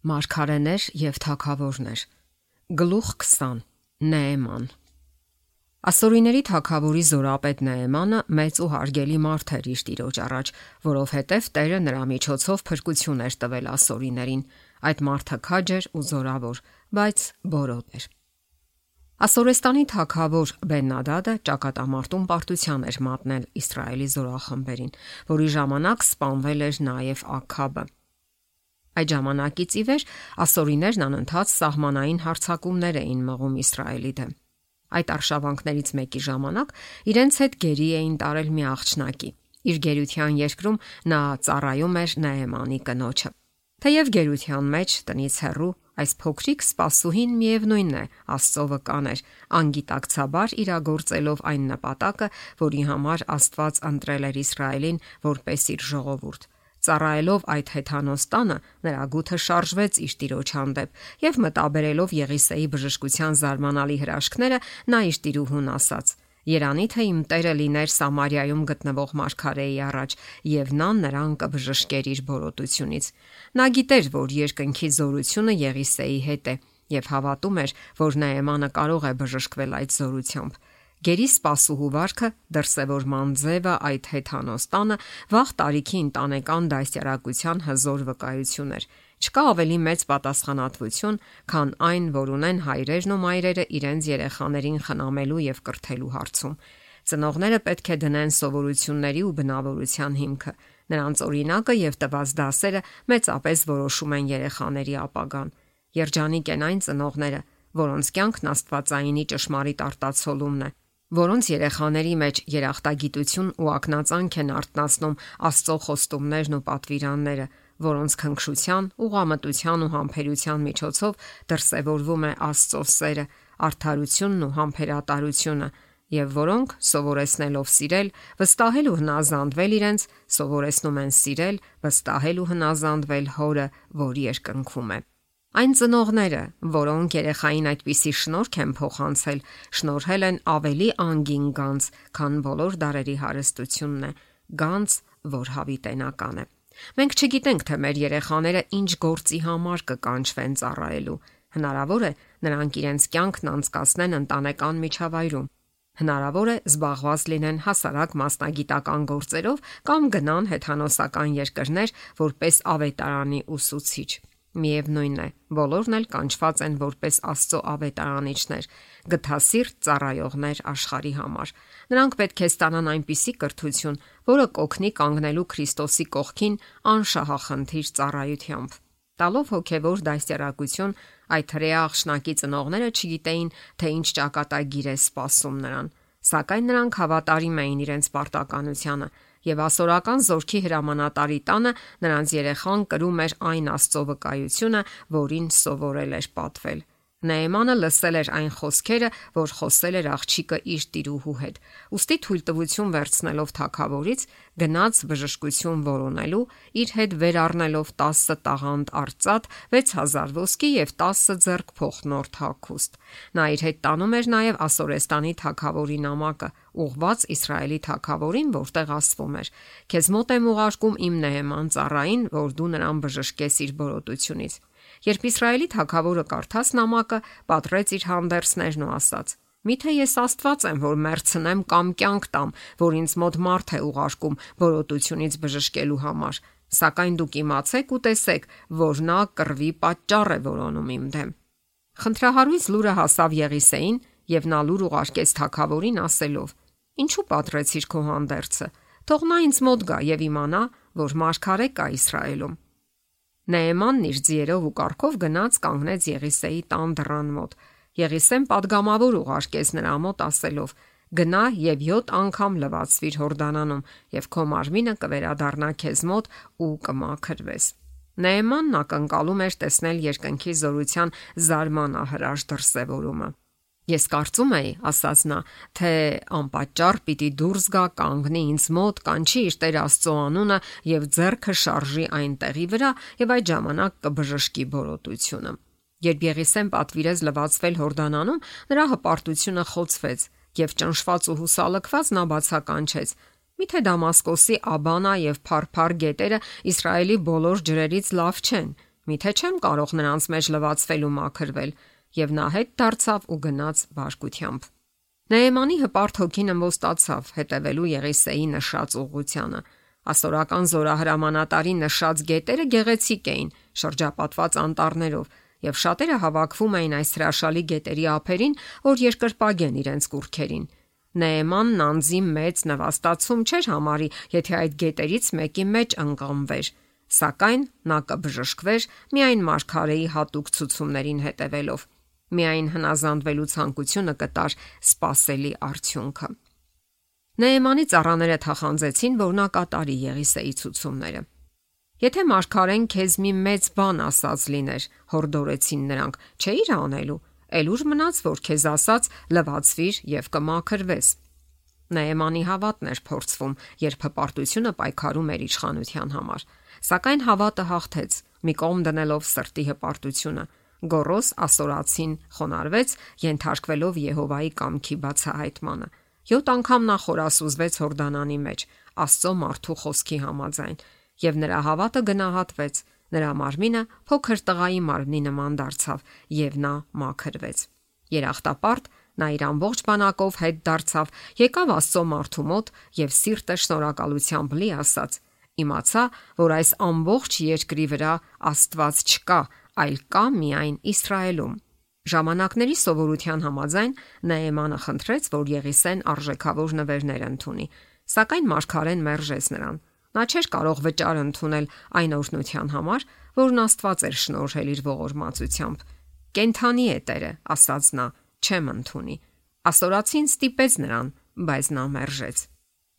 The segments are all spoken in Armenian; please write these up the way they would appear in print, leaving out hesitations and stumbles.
Մարգարեներ եւ թագավորներ։ Գլուխ 20 Նեեման։ Ասորիների թագավորի զորապետ Նեեմանը մեծ ու հարգելի մարդ էր իր տիրոջ առաջ, որովհետև Տերը նրա միջոցով փրկություն էր տվել ասորիներին։ Այդ մարդը քաջ էր ու զորավոր, բայց բորոտ էր։ Ասորեստանի թագավոր Բեն-Նադադը ճակատամարտում պարտության էր մատնել Իսրայելի զորախմբերին, որի ժամանակ սպանվել էր նաև Աքաբը։ Այդ ժամանակից ի վեր ասորիներն անընդհատ սահմանային հարձակումներ էին մղում Իսրայելի դեմ։ Այդ արշավանքներից մեկի ժամանակ իրենց հետ գերի էին տարել մի աղջնակի։ Իր գերության երկրում նա ծառայում էր Նեեմանի կնոջը։ Թեև գերության մեջ տնից հեռու այս փոքրիկ սպասուհին միևնույնն է Աստծո վկան էր, անգիտակցաբար իրագործելով այն նպատակը, որի համար Աստված ընտրել էր Իսրայելին որպես իր ժողովուրդ։ Ծառայելով այդ հեթանոս տանը, նրա գութը շարժվեց իր տիրոջ հանդեպ եւ մտաբերելով Եղիսեի բժշկության զարմանալի հրաշքները, նա իր տիրուհուն ասաց. «Երանի թե իմ Տերը լիներ Սամարիայում գտնվող մարգարեի առաջ, եւ նա նրան կբժշկեր իր բորոտությունից»։ Նա գիտեր, որ երկնքի զորությունը Եղիսեի հետ է եւ հավատում էր, որ Նեեմանը կարող է բժշկվել այդ զորությամբ։ Գերի սպասուհու վարքը դրսևորման ձևը այդ հեթանոս տանը վաղ տարիքի ընտանեկան դաստիարակության հզոր վկայություն էր։ Չկա ավելի մեծ պատասխանատվություն, քան այն, որ ունեն հայրերն ու մայրերը իրենց երեխաներին խնամելու եւ կրթելու հարցում։ Ծնողները պետք է դնեն սովորությունների ու բնավորության հիմքը։ Նրանց օրինակը եւ տված դասերը մեծապես որոշում են երեխաների ապագան։ Երջանիկ են այն ծնողները, որոնց կյանքն աստվածայինի ճշմարիտ արտացոլումն է, որոնց երեխաների մեջ երախտագիտություն ու ակնածանք են արտնասնում Աստծո խոստումներն ու պատվիրանները, որոնց քնքշության, ուղղամտության ու համբերության միջոցով դրսևորվում է Աստծո սերը, արդարությունն ու համբերատարությունը, եւ որոնք սովորեցնելով սիրել, վստահել ու հնազանդվել իրենց, սովորեցնում են սիրել, վստահել ու հնազանդվել Հորը, որ երկնքում է։ Այն ծնողները, որոնք երեխային այդպիսի շնորհք են փոխանցել, շնորհել են ավելի անգին գանձ, քան բոլոր դարերի հարստությունն է, գանձ, որ հավիտենական է։ Մենք չգիտենք, թե մեր երեխաները ինչ գործի համար կկանչվեն ծառայելու։ Հնարավոր է նրանք իրենց կյանքն անցկացնեն ընտանեկան միջավայրում։ Հնարավոր է զբաղված լինեն հասարակ մասնագիտական գործերով կամ գնան հեթանոսական երկրներ որպես ավետարանի ուսուցիչ։ Միևնույն է, բոլորն էլ կանչված են որպես Աստծո ավետարանիչներ, գթասիրտ ծառայողներ աշխարհի համար։ Նրանք պետք է ստանան այնպիսի կրթություն, որը կօգնի կանգնելու Քրիստոսի կողքին անշահախնդիր ծառայությամբ։ Տալով հոգևոր դաստիարակություն, այդ հրեա աղջնակի ծնողները չգիտեին, թե ինչ ճակատագիր է սպասում նրան, սակայն նրանք հավատարիմ էին իրենց պարտականությանը, եւ ասորական զորքի հրամանատարի տանը նրանց երեխան կրում էր այն Աստծո վկայությունը, որին սովորել էր պատվել։ Նեեմանը լսել էր այն խոսքերը, որ խոսել էր աղջիկը իր տիրուհու հետ։ Ոստի թույլտվություն վերցնելով թագավորից, գնաց բժշկություն որոնելու, իր հետ վեր առնելով 10 տաղանդ արծաթ, 6000 ոսկի եւ 10 ձեռք փոխնորդ հագուստ։ Նա իր հետ տանում էր նաեւ Ասորեստանի թագավորի նամակը, ուղված Իսրայելի թագավորին, որտեղ ասվում էր. «Քեզ մոտ եմ ուղարկում իմ Նեեման ծառային, որ դու նրան բժշկես իր բորոտությունից»։ Երբ Իսրայելի թագավորը կարդաց նամակը, պատռեց իր հանդերձներն ու ասաց. «Միթե ես Աստված եմ, որ մեռցնեմ կամ կյանք տամ, որ ինձ մոտ մարդ է ուղարկում բորոտությունից բժշկելու համար, սակայն դուք իմացեք ու տեսեք, որ նա կռվի պատճառ է որոնում իմ դեմ»։ Խնդրահարույց լուրը հասավ Եղիսեին, եւ նա լուր ուղարկեց թագավորին ասելով. «Ինչու պատռեցիր քո հանդերձը, թող նա ինձ մոտ գա եւ իմանա, որ մարգարե կա Իսրայելում»։ Նեեմանն իր ձիերով ու կառքով գնաց կանգնեց Եղիսեի տան դռան մոտ։ Եղիսեն պատգամավոր ուղարկեց նրա մոտ ասելով. «Գնա եւ 7 անգամ լվացվիր Հորդանանում, եւ քո մարմինը կվերադառնա քեզ մոտ ու կմաքրվես»։ Նեեմանն ակնկալում էր տեսնել երկնքի զորության զարմանահրաշ դրսևորումը։ «Ես կարծում էի, ասաց նա, թե անպատճառ պիտի դուրս գա, կանգնի ինձ մոտ, կանչի իր Տեր Աստծո անունը եւ ձեռքը շարժի այն տեղի վրա եւ այդ ժամանակ կբժշկի բորոտությունը»։ Երբ Եղիսեն պատվիրեց լվացվել Հորդանանում, նրա հպարտությունը խոցվեց եւ ճնշված ու հուսալքված նա բացականչեց. «Միթե Դամասկոսի Աբանա եւ Փարփար գետերը Իսրայելի բոլոր ջրերից լավ չեն»։ Միթե չեմ կարող նրանց մեջ լվացվել ու մաքրվել, եւ նա հետ դարձավ ու գնաց բարկությամբ։ Նեեմանի հպարտ հոգին ըմբոստացավ հետևելու Եղիսեի նշած ուղղությանը։ Ասորական զորահրամանատարի նշած գետերը գեղեցիկ էին, շրջապատված անտառներով, եւ շատերը հավաքվում էին այս հրաշալի գետերի ափերին, որ երկրպագեն իրենց կուռքերին։ Նեեմանն անձի մեծ նվաստացում չէր համարի, եթե այդ գետերից մեկի մեջ ընկղմվեր, սակայն նա կբժշկվեր միայն մարգարեի հատուկ ցուցումներին հետևելով։ Միայն հնազանդվելու ցանկությունը կտար սпасելի արդյունքը։ Նեեմանի ծառաները թախանձեցին, որ նա կատարի Եղիսեի ցուցումները։ Եթե մարգարեն քեզ մի մեծ բան ասած լիներ, հորդորեցին նրանք, չէիր անելու, էլ ուր մնաց, որ քեզ ասած լվացվիր եւ կմաքրվես։ Նեեմանի հավատն էր փորձվում, երբ հպարտությունը պայքարում էր իշխանության համար, սակայն հավատը հաղթեց, մի կողմ դնելով սրտի հպարտությունը։ Գոռոս ասորացին խոնարհվեց, ենթարկվելով Եհովայի կամքի բացահայտմանը։ 7 անգամ նա խորասուզվեց Հորդանանի մեջ, Աստծո մարդու խոսքի համաձայն, եւ նրա հավատը գնահատվեց, նրա մարմինը փոքր տղայի մարմնի նման դարձավ, եւ նա մաքրվեց։ Երախտապարտ նա իր ամբողջ բանակով հետ դարձավ, եկավ Աստծո մարդու մոտ եւ սիրտը շնորհակալությամբ լի ասաց. իմացա, որ այս ամբողջ երկրի վրա Աստված չկա, այլ կա միայն Իսրայելում։ Ժամանակների սովորության համաձայն Նեեմանը խնդրեց, որ Եղիսեն արժեքավոր նվերներ ընդունի, սակայն մարգարեն մերժեց նրան։ Նա չէր կարող վճար ընդունել այն օրհնության համար, որն Աստված էր շնորհել իր ողորմածությամբ։ Կենթանի է Տերը, ասաց նա, չեմ ընդունի։ Ասորացին ստիպեց նրան, բայց նա մերժեց։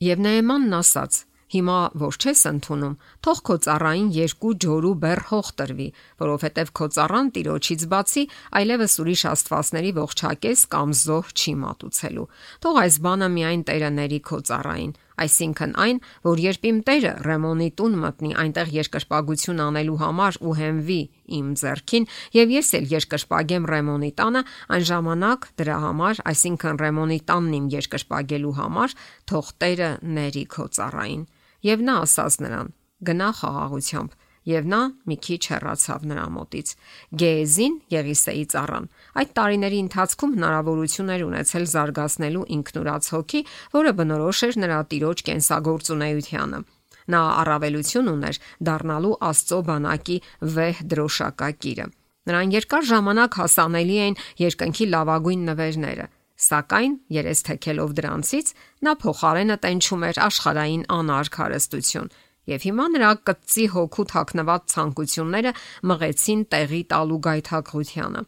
Եվ Նեեմանն ասաց. Հիմա որ չես ընդունում, թող քո ծառային 2 ջորու բեռ հող տրվի, որովհետև քո ծառան Տիրոջից բացի այլևս ուրիշ աստվածների ողջակես կամ զոհ չի մատուցելու։ Թող այս բանը միայն Տերը ների քո ծառային, այսինքն այն, որ երբ իմ Տերը Ռեմոնի տուն մտնի այնտեղ երկրպագություն անելու համար ու հենվի իմ ձեռքին, եւ ես էլ երկրպագեմ Ռեմոնի տանը, այն ժամանակ դրա համար, այսինքն Ռեմոնի տանն իմ երկրպագելու համար, թող Տերը ների քո ծառային։ Եվ նա ասաց նրան. գնա խաղաղությամբ, եւ նա մի քիչ հեռացավ նրա մոտից։ Գեեզին, Եղիսեի ծառան, այդ տարիների ընթացքում հնարավորություն էր ունեցել զարգացնելու ինքնուրաց հոգի, որը բնորոշ էր նրա տիրոջ կենսագործունեությանը։ Նա առավելություն ուներ դառնալու Աստծո բանակի վեհ դրոշակակիրը։ Նրան երկար ժամանակ հասանելի էին երկնքի լավագույն նվերները, սակայն երես թեքելով դրանցից նա փոխարենը տենչում էր աշխարհային անարգ հարստություն, եւ հիմա նրա կծի հոգու թաքնված ցանկությունները մղեցին տեղի տալու գայթակղությանը։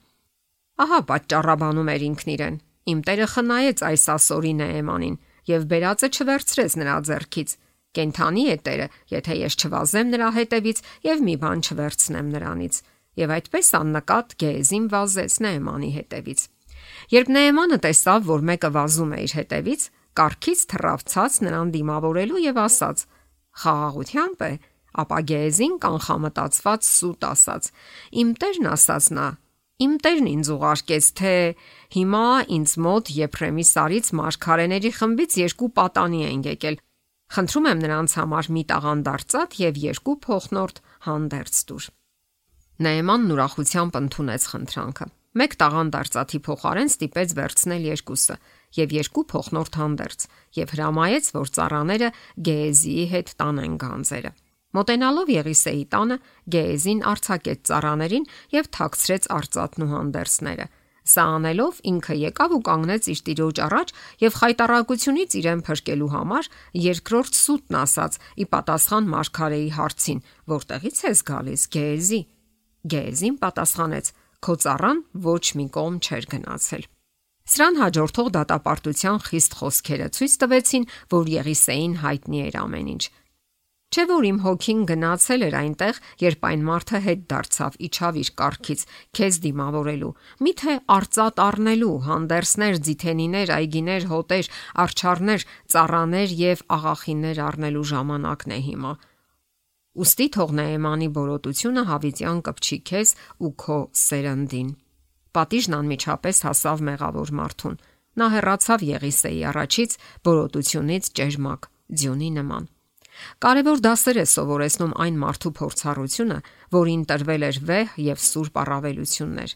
Ահա պատճառաբանում էր ինքն իրեն. իմ Տերը խնայեց այս ասորի Նեեմանին եւ բերածը չվերցրեց նրա ձեռքից։ Կենթանի է Տերը, եթե ես չվազեմ նրա հետևից եւ մի բան չվերցնեմ նրանից։ Եվ այդպես աննկատ Գեեզին վազեց Նեեմանի հետևից։ Երբ Նեեմանը տեսավ, որ մեկը վազում է իր հետևից, կառքից թռավ ցած նրան դիմավորելու եւ ասաց. խաղաղությամբ է, ապա Գեեզին կանխամտածված սուտ ասաց. իմ Տերն ասաց նա, իմ Տերն ինձ ուղարկեց, թե հիմա ինձ մոտ Եփրեմի սարից մարգարեների խմբից 2 պատանի են եկել։ Խնդրում եմ նրանց համար մի տաղանդարծատ եւ 2 փոխնորդ հանդերձ տուր։ Նեեմանն ուրախությամբ ընդունեց խնդրանքը։ 1 տաղանդարծաթի փոխարեն ստիպեց վերցնել 2-ը եւ 2 փոխնորդ հանդերձ եւ հրամայեց, որ ծառաները Գեեզիի հետ տանեն գանձերը։ Մոտենալով Եղիսեի տանը, Գեեզին արձակեց ծառաներին եւ թաքցրեց արծաթն ու հանդերձները։ Սա անելով ինքը եկավ ու կանգնեց իր տիրոջ առաջ եւ խայտարակությունից իրեն փրկելու համար երկրորդ սուտն ասաց՝ ի պատասխան մարգարեի հարցին. որտեղից ես գալիս, Գեեզի։ Գեեզին պատասխանեց. քո ծառան ոչ մի կողմ չէր գնացել։ Սրան հաջորդող դատապարտության խիստ խոսքերը ցույց տվեցին, որ Եղիսեին հայտնի էր ամեն ինչ։ Չէ՞ որ իմ հոգին գնացել էր այնտեղ, երբ այն մարդը հետ դարձավ, իջավ իր կառքից, քեզ դիմավորելու, միթե արծաթ առնելու, հանդերձներ, ձիթենիներ, այգիներ, հոտեր, արջառներ, ծառաներ եւ աղախիններ առնելու ժամանակն է հիմա։ Ուստի թող Նեեմանի բորոտությունը հավիտյան կպչի քեզ ու քո սերնդին։ Պատիժն անմիջապես հասավ մեղավոր մարդուն։ Նա հեռացավ Եղիսեի առաջից բորոտությունից ճերմակ, ձյունի նման։ Կարևոր դասեր է սովորեցնում այն մարդու փորձառությունը, որին տրվել էր վեհ եւ սուրբ առավելություններ։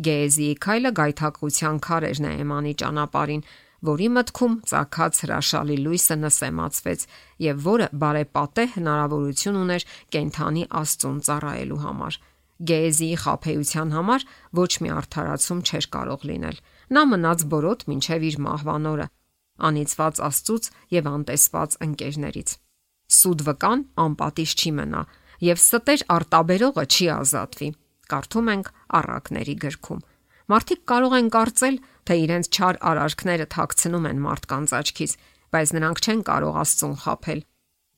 Գեհեզիի քայլը գայթակղության քար էր Նեեմանի ճանապարհին, որի մտքում ծագած հրաշալի լույսը նսեմացվեց եւ որը բարեպատե հնարավորություն ուներ կենթանի Աստծուն ծառայելու համար։ Գեհեզիի խաբեության համար ոչ մի արդարացում չէր կարող լինել։ Նա մնաց բորոտ մինչև իր մահվան օրը, անիծված Աստծուց եւ անտեսված ընկերներից։ Սուտ վկան անպատիժ չի մնա եւ ստեր արտաբերողը չի ազատվի։ Կարդում ենք Առակների գրքում։ Մարդիկ կարող են կարծել, թե իրենց չար արարքները թաքցնում են մարդկանց աչքից, բայց նրանք չեն կարող Աստծուն խաբել։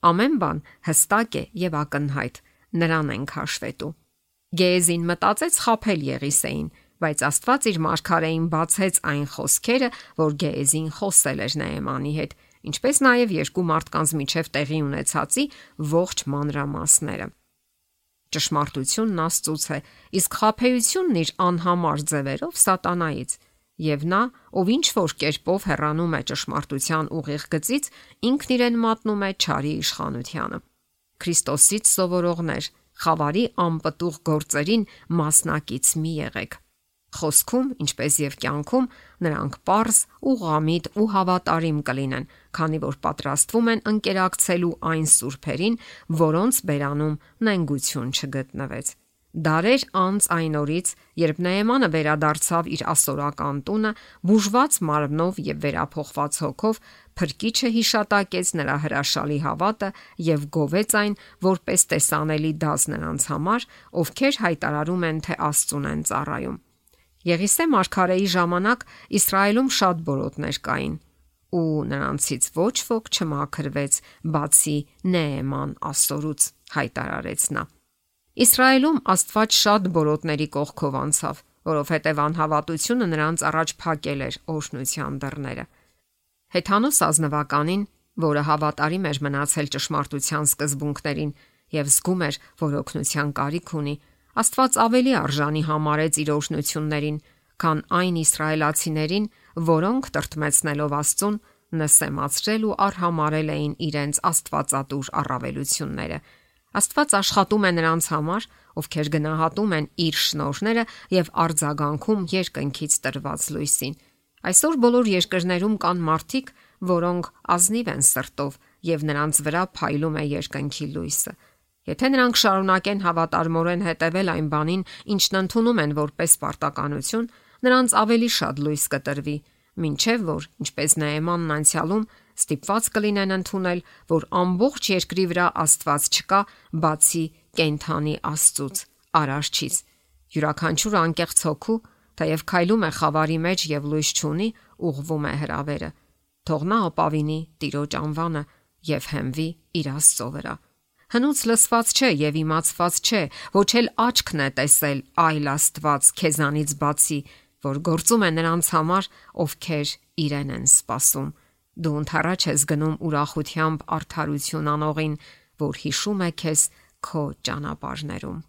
Ամեն բան հստակ է եւ ակնհայտ, նրան ենք հաշվետու։ Գեհեզին մտածեց խաբել Եղիսեին, բայց Աստված իր մարգարեին բացեց այն խոսքերը, որ Գեհեզին խոսել էր Նեեմանի հետ, ինչպես նաև երկու մարդկանց միջև տեղի ունեցածի ողջ մանրամասները։ Ճշմարտությունն Աստծուց է, իսկ խաբեությունն իր անհամար ձևերով սատանայից, եւ նա, ով ինչ որ կերպով հեռանում է ճշմարտության ուղիղ գծից, ինքն իրեն մատնում է չարի իշխանությանը։ Քրիստոսից սովորողներ, խավարի անպտուղ գործերին մասնակից մի եղեք։ Խոսքում, ինչպես եւ կյանքում, նրանք պարզ, ուղղամիտ ու հավատարիմ կլինեն, քանի որ պատրաստվում են ընկերակցելու այն սուրբերին, որոնց բերանում նենգություն չգտնվեց։ Դարեր անց այն օրից, երբ Նեեմանը վերադարձավ իր ասորական տունը, բուժված մարմնով եւ վերափոխված հոգով, Փրկիչը հիշատակեց նրա հրաշալի հավատը եւ գովեց այն որպես տեսանելի դաս նրանց համար, ովքեր հայտարարում են, թե Աստծուն են ծառայում։ Եղիսե մարգարեի ժամանակ Իսրայելում շատ բորոտներ կային, ու նրանցից ոչ ոք չմաքրվեց, բացի Նեեման ասորուց, հայտարարեց նա։ Իսրայելում Աստված շատ բորոտների կողքով անցավ, որովհետև անհավատությունը նրանց առաջ փակել էր օրհնության դռները։ Հեթանոս ազնվականին, որը հավատարիմ էր մնացել ճշմարտության սկզբունքներին եւ զգում էր, որ օգնության կարիք ունի, Աստված ավելի արժանի համարեց իր օրհնություններին, քան այն իսրայելացիներին, որոնք տրտմեցնելով Աստծուն, նսեմացրել ու արհամարել էին իրենց աստվածատուր առավելությունները։ Աստված աշխատում է նրանց համար, ովքեր գնահատում են իր շնորհները եւ արձագանքում երկնքից տրված լույսին։ Այսօր բոլոր երկրներում կան մարդիկ, որոնք ազնիվ են սրտով եւ նրանց վրա փայլում է երկնքի լույսը։ Եթե նրանք շարունակեն հավատարմորեն հետևել այն բանին, ինչն ընդունում են որպես պարտականություն, նրանց ավելի շատ լույս կտրվի, մինչև որ, ինչպես Նեեմանն անցյալում, ստիպված կլինեն ընդունել, որ ամբողջ երկրի վրա Աստված չկա, բացի կենթանի Աստծուց, Արարչից։ Յուրաքանչյուր անկեղծ հոգու, թեև քայլում է խավարի մեջ եւ լույս չունի, ուղղվում է հրավերը։ Թող նա ապավինի Տիրոջ անվանը եւ հենվի իր Աստծո վրա։ Հնուց լսված չէ եւ իմացված չէ, ոչ էլ աչքն է տեսել այլ Աստված քեզանից բացի, որ գործում է նրանց համար, ովքեր իրեն են սպասում։ Դու ընթառաջ ես գնում ուրախությամբ արդարություն անողին, որ հիշում է քեզ քո ճանապարհներում։